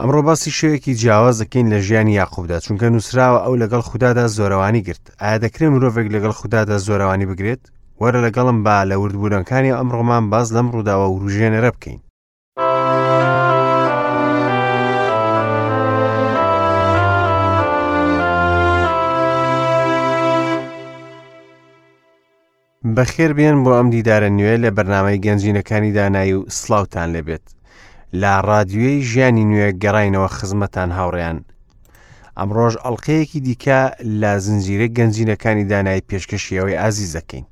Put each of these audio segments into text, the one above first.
ئەمڕۆ باسی شێوەیەکی جیاواز دەکەین لە ژیانی یاقوبدا، چونکە نووسراوە ئەو لەگەڵ خودادا زۆرەوانی گرت. ئایا دەکرێت مرۆڤێک لەگەڵ خودادا زۆرەوانی بگرێت؟ وەرە لەگەڵم با لە وردبوونەکانی ئەمڕۆمان باس لەم ڕووداوە وروژێنەرە بکەین. بەخێر بێن بۆ ئەم دیدارە نوێ لە بەرنامەی گەنجینەکانی دانایی و سڵاوتان لێبێت لە ڕادیۆی ژیانی نوێ گەڕینەوە خزمەتان هاوڕێیان ئەمڕۆژ ئەڵلقەیەکی دیکە لە زنجیرە گەنجینەکانی دانایی پێشکەشی ئەوەی ئازیز دەکەین.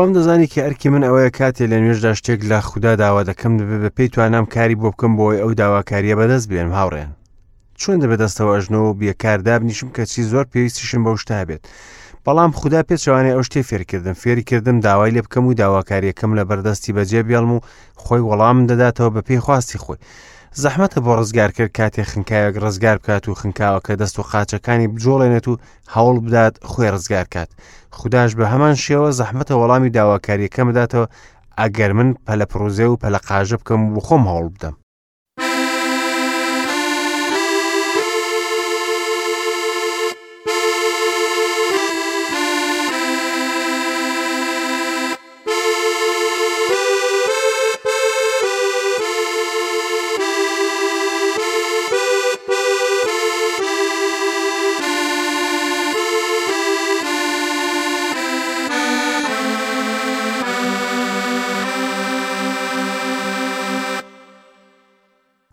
خۆم دەزانی کە ئەرکی من ئەوەیە کاتێ لە نوێژدا شتێک لە خودا داوا دەکەم دەبێ بە پێی توانام کاری بۆ بکەم بۆی ئەو داواکاریە بەدەست بێنم هاوڕێن چۆن دەبێت دەستەوە ئەژنۆ و بێکار دابنیشم کەچی زۆر پێویستیشم بەو شتە هەبێت بەڵام خودا پێچەوانەی ئەو شتەی فێرکردم فێری کردم داوای لێ بکەم و داواکاریەکەم لە بەردەستی بەجێ بێڵم و خۆی وەڵام دەداتەوە بە پێی خواستی خۆی زەحمەتە بۆ ڕزگار کرد کاتێ خنکاوێک ڕزگار بکات و خنکاوەکە دەست و قاچەکانی بجۆڵێنێت و هەوڵ بدات خۆی ڕزگار کات خودداش بە هەمان شێوە زەحمەتە وەڵامی داواکاریەکەم بداتەوە ئەگەر من پەلەپڕوزێ و پەلەقاژە بکەم و خۆم هەوڵ بدەم.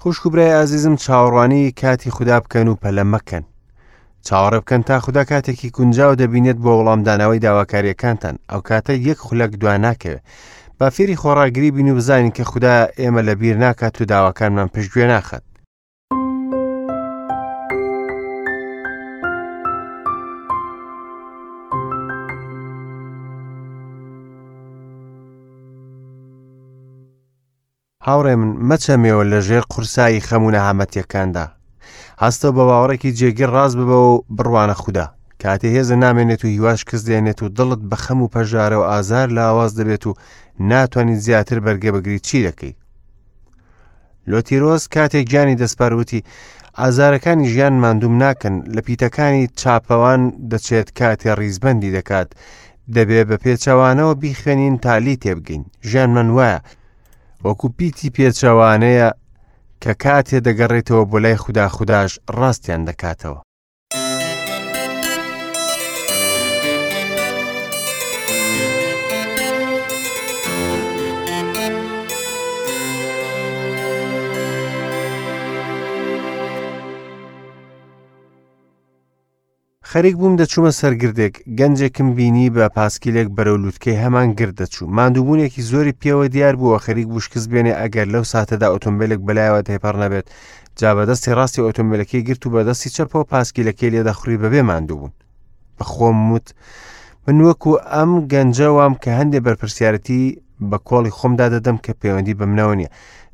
خوشک و برای ئازیزم چاوەڕوانی کاتی خودا بکەن و پەلە مەکەن. چاوەڕێ بکەن تا خودا کاتێکی گونجاو دەبینێت بۆ وەڵامدانەوەی داواکاریەکانتان ئەو کاتە یەک خولەک دوا ناکەوێت با فێری خۆڕاگری بین و بزانین کە خودا ئێمە لە بیر ناکات و داواکانمان پشتگوێ ناخات هاوڕێ من مەچەمێوە لە ژێر قورسایی خەم و نەهامەتیەکاندا. هەستە بە باوەڕێکی جێگیر ڕاست ببەوە و بڕوانە خودا. کاتێ هێزە نامێنێت و هیواش کز دێنێت و دڵت بە خەم و پەژارە و ئازار لاواز دەبێت و ناتوانیت زیاتر بەرگە بگریت چی دەکەیت؟ لۆتیرۆس کاتێک گیانی دەسپار وتی ئازارەکانی ژیان ماندووم ناکەن لە پیتەکانی چاپەوان دەچێت کاتێ ڕیزبەندی دەکات دەبێ بە پێچەوانەوە بیخوێنین تا لی تێبگەین ژیانمان وایە وەکو پیتی پێچەوانەیە کە کاتێ دەگەڕێتەوە بۆ لای خودا خوداش ڕاستیان دەکاتەوە. خەریک بووم دەچوومە سەر گردێک، گەنجێکم بینی بە پاسکیلێک بەرەو لووتکەی هەمان گرد دەچوو. ماندووبوونێکی زۆری پێوە دیار بوو و خەریک بوو شکست بێنێ ئەگەر لەو ساتەدا ئۆتۆمبیلێک بەلایەوە تێپەڕ نەبێت. جا بە دەستی ڕاستی ئۆتۆمبیلەکەی گرت و بە دەستی چەپەوە پاسکیلەکەی لێ دەخوڕی بەبێ ماندووبوون. بە خۆم وت من وەکو ئەم گەنجە وام کە هەندێ بەرپرسیارەتی بە کۆڵی خۆمدا دەدەم کە پەیوەندی بە منەوە نییە.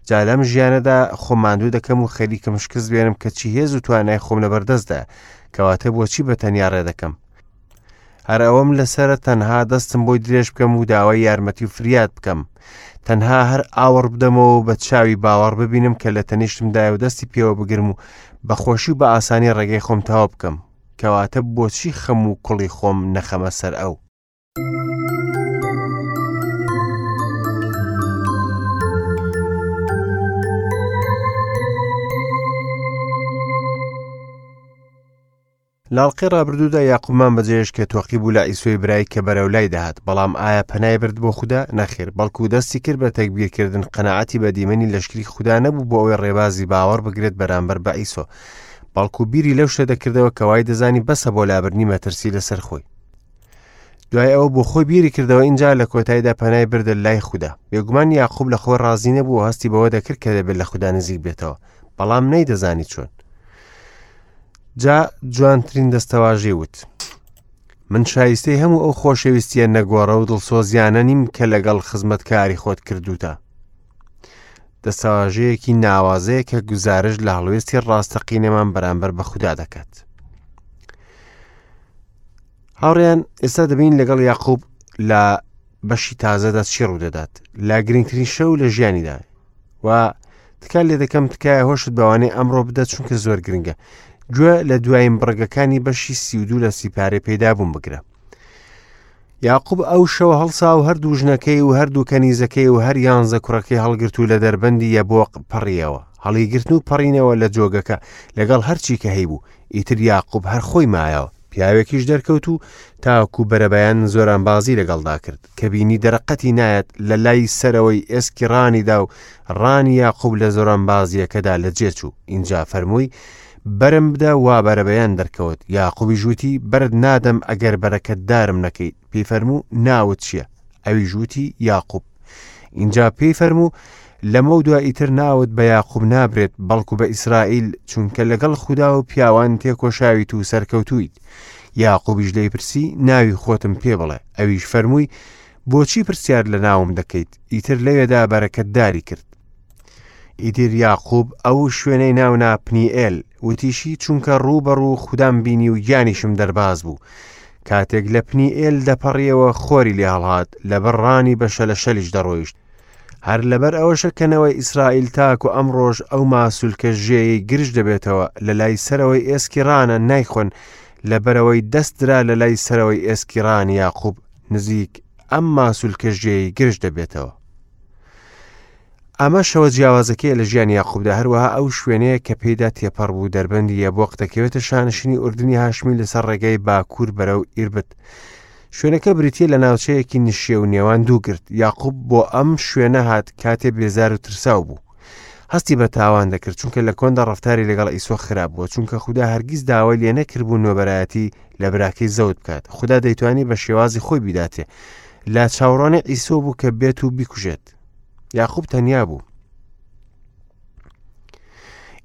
جا لەم ژیانەدا خۆم ماندوو دەکەم و خەریکم شکست بێنم کە چی هێز و توانای خۆم لەبەردەستدایە. کەواتە بۆچی بە تەنیا ڕێ دەکەم؟ هەر ئەوەم لەسرە تەنها دەستم بۆی درێژ بکەم و داوای یارمەتی و فریاد بکەم. تەنها هەر ئاوەڕ بدەمەوە و بە چاوی باوەڕ ببینم کە لە تەنیشتمدایە و دەستی پێوە بگرم و بە خۆشی و بە ئاسانی ڕێگەی خۆم تەواو بکەم. کەواتە بۆچی خەم و کوڵی خۆم نەخەمە سەر ئەو؟ لاڵقەی ڕابردوودا یاقوبمان بەجێهێشت کە تۆقی بوو لە عیسۆی برای کە بەرەو لای دەهات، بەڵام ئایا پەنای برد بۆ خودا؟ نەخێر، بەڵکو دەستی کرد بە تەگبیرکردن، قەناعەتی بە دیمەنی لەشکری خودا نەبوو بۆ ئەوەی ڕێبازی باوەڕ بگرێت بەرامبەر بە عیسۆ، بەڵکو بیری لەو شتە دەکردەوە کە وای دەزانی بەسە بۆ لابردنی مەترسی لەسەر خۆی. دوای ئەوە بۆ خۆی بیری کردەوە ئینجا لە کۆتاییدا پەنای بردە لای خودا. بێگومان یاقوب لە خۆی ڕازی نەبوو و هەستی بەوە دەکرد کە دەبێت لە خودا نزیک بێتەوە، بەڵام نەیدەزانی چۆن. جا جوانترین دەستەواژەی وت من شایستەی هەموو ئەو خۆشەویستیە نەگۆڕە و دڵسۆزیانە نیم کە لەگەڵ خزمەتکاری خۆت کردوتە. دەستەواژەیەکی ناوازەیە کە گوزارشت لە هەڵوێستی ڕاستەقینەمان بەرامبەر بە خودا دەکات. هاوڕێیان ئێستا دەبین لەگەڵ یاقوب لە بەشی تازەدا چی ڕوودەدات لە گرنگترین شەو لە ژیانیدا و تکا لێ دەکەم تکایە هۆشت بەوانەی ئەمڕۆ بدە چونکە زۆر گرنگە گوێ لە دوایین بڕگەکانی بەشی 32 لە سیپارەی پەیدا بوون بگرە یاقوب ئەو شەوە هەڵسا و هەردوو ژنەکەی و هەردوو کەنیزەکەی و هەر یانزە کوڕەکەی هەڵگرت و لە دەربەندی یەبۆق پەڕیەوە هەڵیگرتن و پەڕینەوە لە جۆگەکە لەگەڵ هەرچی کە هەیبوو ئیتر یاقوب هەر خۆی مایەوە پیاوێکیش دەرکەوت و تاکو بەرەبەیان زۆرانبازی لەگەڵدا کرد کە بینی دەرەقەتی نایەت لە لای سەرەوەی ئێسکی ڕانیدا و ڕانی یاقوب لە زۆرانبازیەکەدا لە جێچوو ئینجا فەرمووی بەرم بدە وا بەرەبەیان دەرکەوت یاقوبیش وتی بەرت نادەم ئەگەر بەرەکەتدارم نەکەیت پێی فەرموو ناوت چییە ئەویش وتی یاقوب ئینجا پێی فەرموو لەمەو دوا ئیتر ناوت بە یاقوب نابرێت بەڵکو بە ئیسرائیل چونکە لەگەڵ خودا و پیاوان تێکۆشاویت و سەرکەوتوویت یاقوبیش لێی پرسی ناوی خۆتم پێ بڵێ ئەویش فەرمووی بۆچی پرسیار لە ناوم دەکەیت ئیتر لەوێدا بەرەکەتداری کرد ئیتر یاقوب ئەو شوێنەی ناونا پنیئێل، وتیشی، چونکە ڕوو بە ڕوو خودام بینی و گیانیشم دەرباز بوو. کاتێک لە پنیئێل دەپەڕیەوە خۆری لێ هەڵهات، لەبەر ڕانی بە شەلەشەلیش دەڕۆیشت. هەر لەبەر ئەوەشە کە نەوەی ئیسرائیل تاکو ئەمڕۆش ئەو ماسولکە ژێیەی گرژ دەبێتەوە لە لای سەرەوەی ئێسکی ڕانە نایخۆن، لەبەرئەوەی دەست درا لە لای سەرەوەی ئێسکی ڕانی یاقوب نزیک ئەم ماسولکە ژێیەی گرژ دەبێتەوە. ئەمە شەوە جیاوازەکەیە لە ژیانی یاقوبدا، هەروەها ئەو شوێنەیە کە پێیدا تێپەڕ بوو دەربەندی یەبۆق دەکەوێتە شانشینی ئوردنی هاشمی لەسەر ڕێگای باکوور بەرەو ئیربت. شوێنەکە بریتییە لە ناوچەیەکی نشێو نێوان دوو گرد. یاقوب بۆ ئەم شوێنە هات کاتێ بێزار و ترساو بوو. هەستی بە تاوان دەکرد چونکە لە کۆندا ڕەفتاری لەگەڵ ئیسۆ خراپ بووە چونکە خودا هەرگیز داوای لێ نەکردبوو نۆبەرایەتی لە براکەی زەوت بکات. خودا دەیتوانی بە شێوازی خۆی بیداتێ. لە چاوەڕوانی ئیسۆ بوو کە بێت و بیکوژێت. یاقوب تەنیا بوو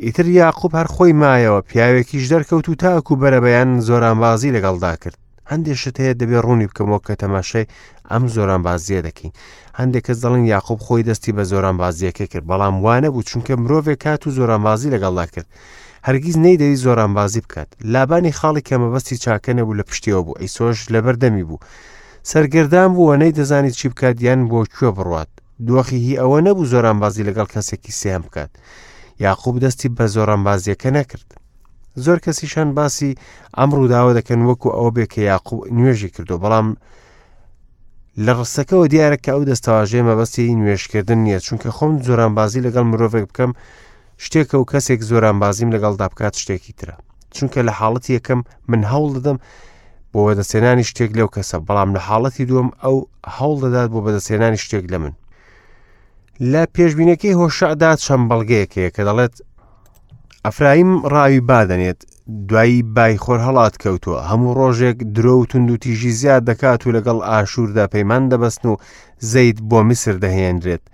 ئیتر یاقوب هەر خۆی مایەوە پیاوێکیش دەرکەوت و تاکو بەرەبەیان زۆرانبازی لەگەڵدا کرد هەندێک شت هەیە دەبێ ڕوونی بکەمەوە کە تەماشای ئەم زۆرانبازیە دەکەین هەندێک کەس دەڵێن یاقوب خۆی دەستی بە زۆرانبازیەکە کرد بەڵام وانە بوو چونکە مرۆڤێک کات و زۆرانبازی لەگەڵدا کرد هەرگیز نەیدەویست زۆرانبازی بکات لابانی خاڵی کە مەبەستی چاکە نەبوو لە پشتیەوە بوو ئیسۆش لەبەر دەمی بوو سەرگەردان بوو و نەیدەزانی چی بکات یان بۆ کوێ بڕوات. دۆخی هی ئەوە نەبوو زۆرانبازی لەگەڵ کەسێکی سێهەم بکات. یاقوب دەستی بە زۆرانبازیەکە نەکرد. زۆر کەسیشان باسی ئەم ڕووداوە دەکەن وەکو ئەوە بێ کە یاقوب نوێژی کردو بەڵام لە ڕستەکەوە دیارە کە ئەو دەستەواژەیە مەبەستی نوێژکردن نییە چونکە خۆم زۆرانبازی لەگەڵ مرۆڤێک بکەم شتێکە و کەسێک زۆرانبازیم لەگەڵدا بکات شتێکی ترە چونکە لە حاڵەتی یەکەم من هەوڵ دەدەم بۆ بەدەستێنانی شتێک لەو کەسە بەڵام لە حاڵەتی دووەم ئەو هەوڵ دەدات بۆ بەدەستێنانی شتێک لە من لە پێشبینەکەی هۆشعدا چەند بەڵگەیەک هەیە کە دەڵێت ئەفرایم ڕاوی بادەنێت دوایی بای خۆر هەڵات کەوتووە هەموو ڕۆژێک درۆ و توندوتیژی زیاد دەکات و لەگەڵ ئاشووردا پەیمان دەبەستن و زەیت بۆ میسر دەهێنرێت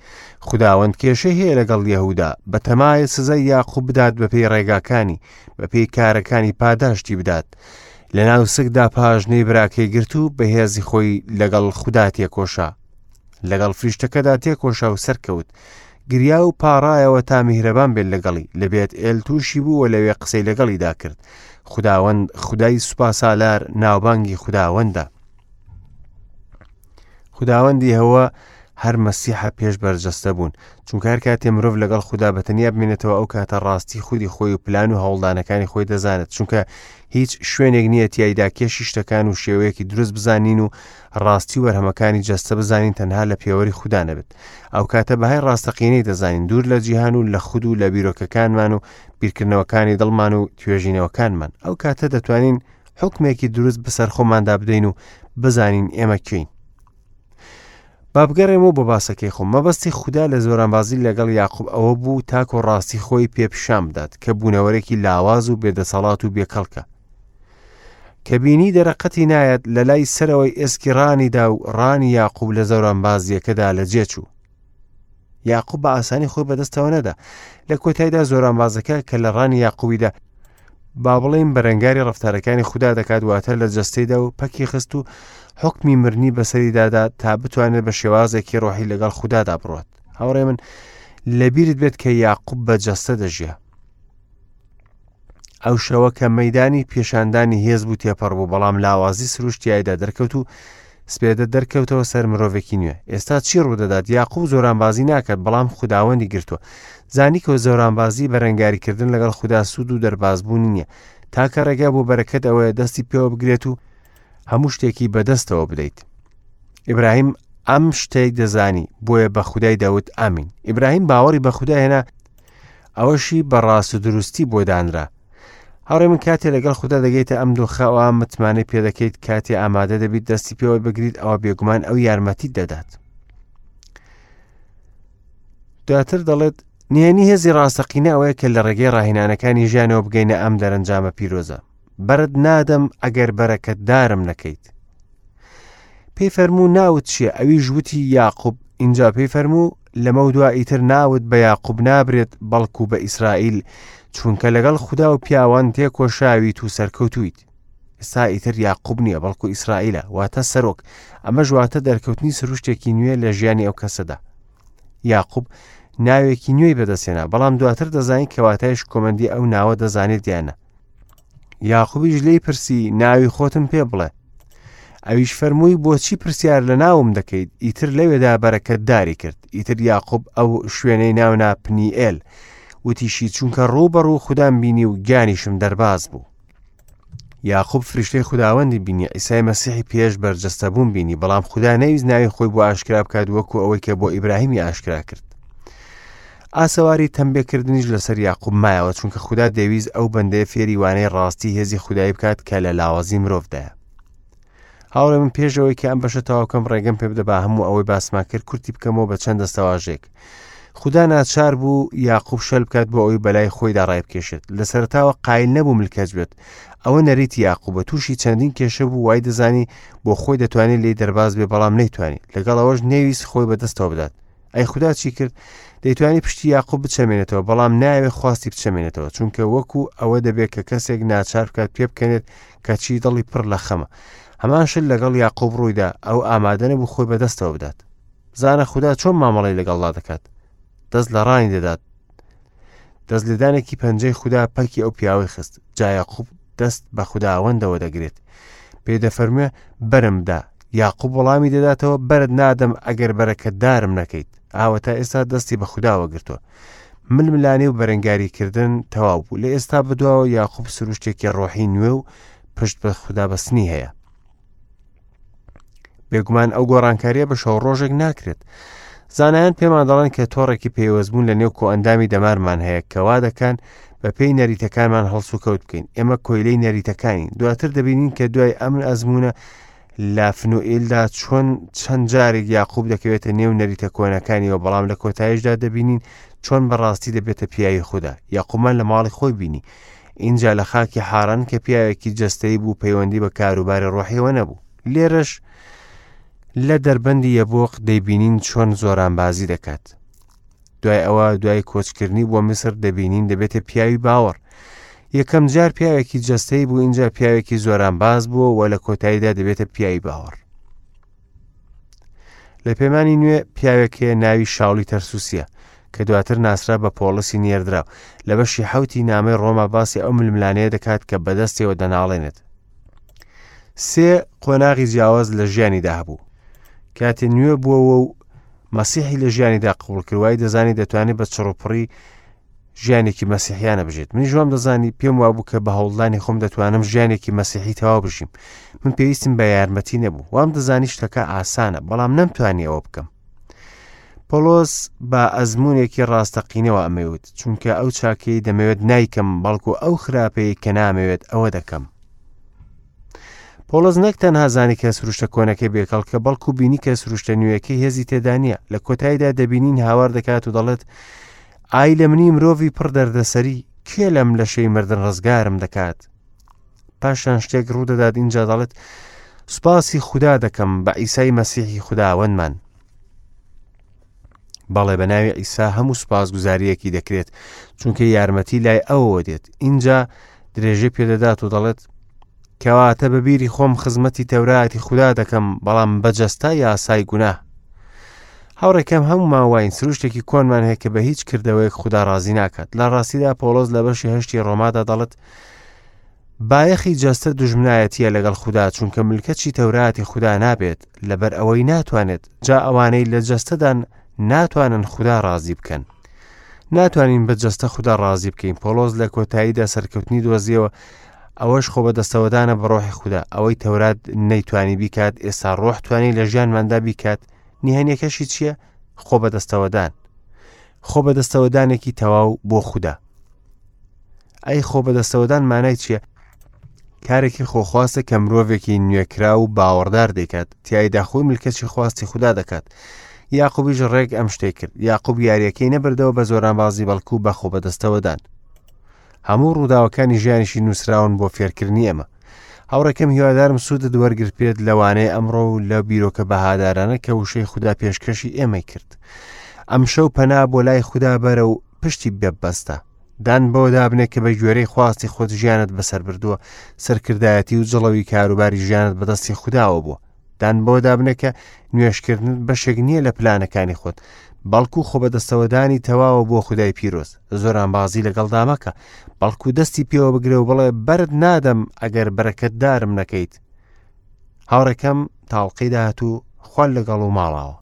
خوداوەند کێشەی هەیە لەگەڵ یەهودا، بەتەمایە سزای یاقوب بدات بەپێی ڕێگاکانی، بەپێی کارەکانی پاداشتی بدات. لەناو سکدا پاژنەی براکەی گرت و بە هێزی خۆی لەگەڵ خودا تێکۆشا. لەگەڵ فریشتەکەدا تێکۆشا و سەرکەوت. گریا و پاڕایەوە تا میهرەبان بێت لەگەڵی. لە بێت ئێل تووشی بوو و لەوێ قسەی لەگەڵیدا کرد. خوداوەند، خودای سوپاسالار، ناوبانگی خوداوەندە. خوداوەندی هەوە هەر مەسیحە پێش بەرجەستە بوون چونکە هەر کاتێ مرۆڤ لەگەڵ خودا بە تەنیا بمێنێتەوە ئەو کاتە ڕاستی خودی خۆی و پلان و هەوڵدانەکانی خۆی دەزانێت چونکە هیچ شوێنێک نییە تیایدا کێشی شتەکان و شێوەیەکی دروست بزانین و ڕاستی و بەرهەمەکانی جەستە بزانین تەنها لە پێوەری خودا نەبێت ئەو کاتە بەهای ڕاستەقینەی دەزانین دوور لە جیهان و لە خود و لە بیرۆکەکانمان و بیرکردنەوەکانی دڵمان و توێژینەوەکانمان ئەو کاتە دەتوانین حوکمێکی دروست بەسەر خۆماندا بدەین و بزانین ئێمە کێین با بگەڕێمەوە بۆ باسەکەی خۆم مەبەستی خودا لە زۆرانبازی لەگەڵ یاقوب ئەوە بوو تاکۆ ڕاستی خۆی پێ پیشان بدات کە بوونەوەرێکی لاواز و بێدەسەڵات و بێکەڵکە کە بینی دەرەقەتی نایەت لە لای سەرەوەی ئێسکی ڕانیدا و ڕانی یاقوب لە زۆرانبازیەکەدا لە جێچوو یاقوب بە ئاسانی خۆی بەدەستەوە نەدا لە کۆتایدا زۆرانبازەکە کە لە ڕانی یاقوبیدا با بڵێین بەرەنگاری ڕەفتارەکانی خودا دەکات واتە لە جەستەیدا و پەکی خست و حکمی مرنی بەسەریدادا تا بتوانێت بە شێوازێکی ڕۆحی لەگەڵ خودادا بڕات هاوڕێ من لەبیرت بێت کە یاقوب بە جەستە دەژیا. ئەو شەوە کە مەدانی پێشاندانی هێز بوو تێپەڕ بوو، بەڵام لاوازی سروشت تیایدا دەرکەوت و سپێدە دەرکەوتەوە سەر مرۆڤێکی نوێ. ئێستا چی ڕوودەدات؟ یاقوب زۆرانبازی ناکات، بەڵام خوداوەندی گرتووە. زانی کە زۆرانبازی بەرەنگاریکردن لەگەڵ خودا سوود و دەربازبوونی نییە. تاکە ڕێگا بۆ بەرەکەت ئەوەیە دەستی پێوە بگرێت و هەموو شتێکی بەدەستەوە بدەیت. ئیبراهیم ئەم شتەی دەزانی، بۆیە بە خودای دەوت ئامین. ئیبراهیم باوەڕی بە خودا هێنا، ئەوەشی بە ڕاست و دروستی بۆ دانرا. هاوڕێ من کاتێ لەگەڵ خودا دەگەیتە ئەم دۆخە ئەوە متمانەی پێدەکەیت کاتێ ئامادە دەبیت دەستی پێوە بگریت ئەوە بێگومان ئەو یارمەتیت دەدات. دواتر دەڵێت نهێنی هێزی ڕاستەقینە ئەوەیە کە لە ڕێگەی ڕاهێنانەکانی ژیانەوە بگەینە ئەم دەرەنجامە پیرۆزە. بەرت نادەم ئەگەر بەرەکەتدارم نەکەیت. پێی فەرموو ناوت چییە؟ ئەویش وتی یاقوب. ئینجا پێی فەرموو لەمەو دوا ئیتر ناوت بە یاقوب نابرێت بەڵکو بە ئیسرائیل، چونکە لەگەڵ خودا و پیاوان تێکۆشاویت و سەرکەوتوویت. ئێستا ئیتر یاقوب نییە بەڵکو ئیسرائیلە، واتە سەرۆک. ئەمەش واتە دەرکەوتنی سروشتێکی نوێ لە ژیانی ئەو کەسەدا. یاقوب ناوێکی نوێی بەدەستهێنا، بەڵام دواتر دەزانین کە واتای شکۆمەندی ئەو ناوە دەزانێت یان نا. یاقوبیش لێی پرسی ناوی خۆتم پێ بڵێ. ئەویش فەرمووی بۆچی پرسیار لە ناوم دەکەیت؟ ئیتر لەوێدا بەرەکەتداری کرد. ئیتر یاقوب ئەو شوێنەی ناونا پنیئێل. وتیشی چونکە ڕوو بە ڕوو خودام بینی و گیانیشم دەرباز بوو. یاقوب فریشتەی خوداوەندی بینی، عیسای مەسیحی پێش بەرجەستەبوون بینی، بەڵام خودا نەیویست ناوی خۆی بۆ ئاشکرا بکات وەکو ئەوەی کە بۆ ئیبراهیمی ئاشکرا کرد. ئاسەواری تەمبێکردنیش لەسەر یاقوب مایەوە، چونکە خودا دەیویست ئەو بەندەیە فێری وانەی ڕاستی هێزی خودایی بکات کە لە لاوازی مرۆڤدایە. هاوڕێ من پێش ئەوەی کە ئەم بەشە تەواو کەم ڕێگەم پێ بدە با هەموو ئەوەی باسمان کرد کورتی بکەمەوە بە چەند دەستەواژەیەک. خودا ناچار بوو یاقوب شەل بکات بۆ ئەوەی بەلای خۆیدا ڕایبکێشێت. لە سەرەتاوە قایل نەبوو ملکەچ بێت. ئەوە نەریتی یاقوبە، تووشی چەندین کێشە بوو، وای دەزانی بۆ خۆی دەتوانێت لێی دەرباز بێ، بەڵام نەیتوانی. لەگەڵ ئەوەش نەیویست خۆی بەدەستەوە بدات. ئەی خودا چی کرد؟ دەیتوانی پشتی یاقوب بچەمێنێتەوە، بەڵام نایەوێت خواستی بچەمێنێتەوە، چونکە وەکو ئەوە دەبێت کە کەسێک ناچار بکات پێبکەنێت کەچی دڵی پڕ لە خەمە. هەمان شت لەگەڵ یاقوب ڕوویدا، ئەو ئامادە نەبوو خۆی بەدەستەوە بدات. بزانە خودا چۆن مامەڵەی لەگەڵدا دەکات. دەست لە ڕانی دەدات. دەست لێدانێکی پەنجەی خودا پەکی ئەو پیاوەی خست. جا یاقوب دەست بە خوداوەندەوە دەگرێت. پێی دەفەرموێ بەرم بدە. یاقوب وەڵامی دەداتەوە بەرت نادەم ئەگەر بەرەکەتدارم نەکەیت. ئاوە تا ئێستا دەستی بە خوداوە گرتووە. ململانێ و بەرەنگاریکردن تەواو بوو. لە ئێستا بەدواوە یاقوب سروشتێکی ڕۆحی نوێ و پشت بە خودا بەستنی هەیە. بێگومان ئەو گۆڕانکاریە بە شەو ڕۆژێک ناکرێت. زانایان پێمان دەڵێن کە تۆڕێکی پەیوەستبوون لە نێو کۆئەندامی دەمارمان هەیە کە وا دەکەن بە پێی نەریتەکانمان هەڵسوکەوت بکەین. ئێمە کۆیلەی نەریتەکانین. دواتر دەبینین کە دوای ئەم ئەزموونە لە فنوئیلدا چۆن چەند جارێک یاقوب دەکەوێتە نێو نەریتە کۆنەکانیەوە، بەڵام لە کۆتاییشدا دەبینین چۆن بەڕاستی دەبێتە پیاوی خودا. یاقوبمان لە ماڵی خۆی بینی. ئینجا لە خاکی حاران کە پیاوێکی جەستەیی بوو پەیوەندی بە کاروباری ڕۆحیەوە نەبوو. لێرەش لە دەربەندی یەبۆق دەیبینین چۆن زۆرانبازی دەکات. دوای ئەوە دوای کۆچکردنی بۆ میسر دەبینین دەبێتە پیاوی باوەڕ. یەکەم جار پیاوێکی جەستەیی بوو ئینجا پیاوێکی زۆرانباز بووە و لە کۆتاییدا دەبێتە پیاوی باوەڕ. لە پەیمانی نوێ پیاوێک هەیە ناوی شاولی تەرسوسیە کە دواتر ناسرا بە پۆڵسی نێردراو. لە بەشی حەوتی نامەی ڕۆما باسی ئەو ململانێیە دەکات کە بەدەستیەوە دەناڵێنێت. سێ قۆناغی جیاواز لە ژیانیدا هەبوو. کاتێ نوێ بووەوە و مەسیحی لە ژیانیدا قبوڵ کرد، وای دەزانی دەتوانێت بە چڕوپڕی ژیانێکی مەسیحیانە بژێت. منیش وام دەزانی، پێم وابوو کە بە هەوڵدانی خۆم دەتوانم ژیانێکی مەسیحی تەواو بژیم. من پێویستم بە یارمەتی نەبوو. وام دەزانی شتەکە ئاسانە، بەڵام نەمتوانی ئەوە بکەم. پۆڵۆس بە ئەزموونێکی ڕاستەقینەوە ئەمەی وت، چونکە ئەو چاکەی دەمەوێت نایکەم، بەڵکو ئەو خراپەی کە نامەوێت ئەوە دەکەم. پۆڵس نەک تەنها زانی کە سروشتە کۆنەکەی بێکەڵکە، بەڵکو بینی کە سروشتە نوێیەکەی هێزی تێدا نییە. لە کۆتاییدا دەبینین هاوار دەکات و دەڵێت ئای لە منی مرۆڤی پڕ دەردەسەری، کێ لەم لەشەی مردن ڕزگارم دەکات؟ پاشان شتێک ڕوودەدات ئینجا دەڵێت سوپاسی خودا دەکەم بە عیسای مەسیحی خوداوەندمان. بەڵێ بە ناوی عیسا هەموو سوپاسگوزارییەکی دەکرێت، چونکە یارمەتی لای ئەوەوە دێت. ئینجا درێژەی پێدەدات و دەڵێت کەواتە بە بیری خۆم خزمەتی تەوراتی خودا دەکەم، بەڵام بە جەستە یاسای گوناه. هاوڕێکەم هەموومان واین، سروشتێکی کۆنمان هەیە کە بە هیچ کردەوەیەک خودا ڕازی ناکات. لە ڕاستیدا پۆڵۆس لە بەشی هەشتی ڕۆمادا دەڵێت بایەخی جەستە دوژمنایەتیە لەگەڵ خودا چونکە ملکەچی تەوراتی خودا نابێت لەبەر ئەوەی ناتوانێت جا ئەوانەی لە جەستەدان ناتوانن خودا ڕازی بکەن. ناتوانین بە جەستە خودا ڕازی بکەین پۆڵۆس لە کۆتاییدا سەرکەوتنی دۆزیەوە ئەوەش خۆ بەدەستەوەدانە بە ڕۆحی خودا ئەوەی تەورات نەیتوانی بیکات ئێستا ڕۆح توانی لە ژیانماندا بیکات نهێنیەکەشی چییە؟ خۆ بەدەستەوەدان خۆ بەدەستەوەدانێکی تەواو بۆ خودا ئەی خۆ بەدەستەوەدان مانای چییە؟ کارێکی خۆخواستە کە مرۆڤێکی نوێکرا و باوەڕدار دەیکات تایدا خۆی ملکەچی خواستی خودا دەکات یاقوبیش ڕێک ئەم شتێک کرد یاقوب یاریەکەی نەبردەوە بە زۆرانبازی بەڵکو بە خۆ بەدەستەوەدان هەموو ڕووداوەکانی ژیانیشی نووسراون بۆ فێرکردنی ئێمە. هاوڕێکەم هیوادارم سوودت وەرگرتبێت لە وانەی ئەمڕۆ و لە بیرۆکە بەهادارانە کە وشەی خودا پێشکەشی ئێمەی کرد. ئەمشەو پەنا بۆ لای خودا بەرە و پشتی ببەستە. دان بەوە دابنێ کە بە گوێرەی خواستی خۆت ژیانت بەسەر بردووە، سەرکردایەتی و جڵەوی کاروباری ژیانت بەدەستی خوداوە بووە. دان بەوە دابنێ کە نوێژکردنت بەشێک نییە لە پلانەکانی خۆت، بەڵکو خۆ بەدەستەوەدانی تەواوە بۆ خودای پیرۆز. زۆرانبازی لەگەڵدا مەکە، بەڵکو دەستی پێوە بگرە و بڵێ بەرت نادەم ئەگەر بەرەکەتدارم نەکەیت. هاوڕێکەم تاڵقەی داهاتوو خوان لەگەڵ و ماڵاوە.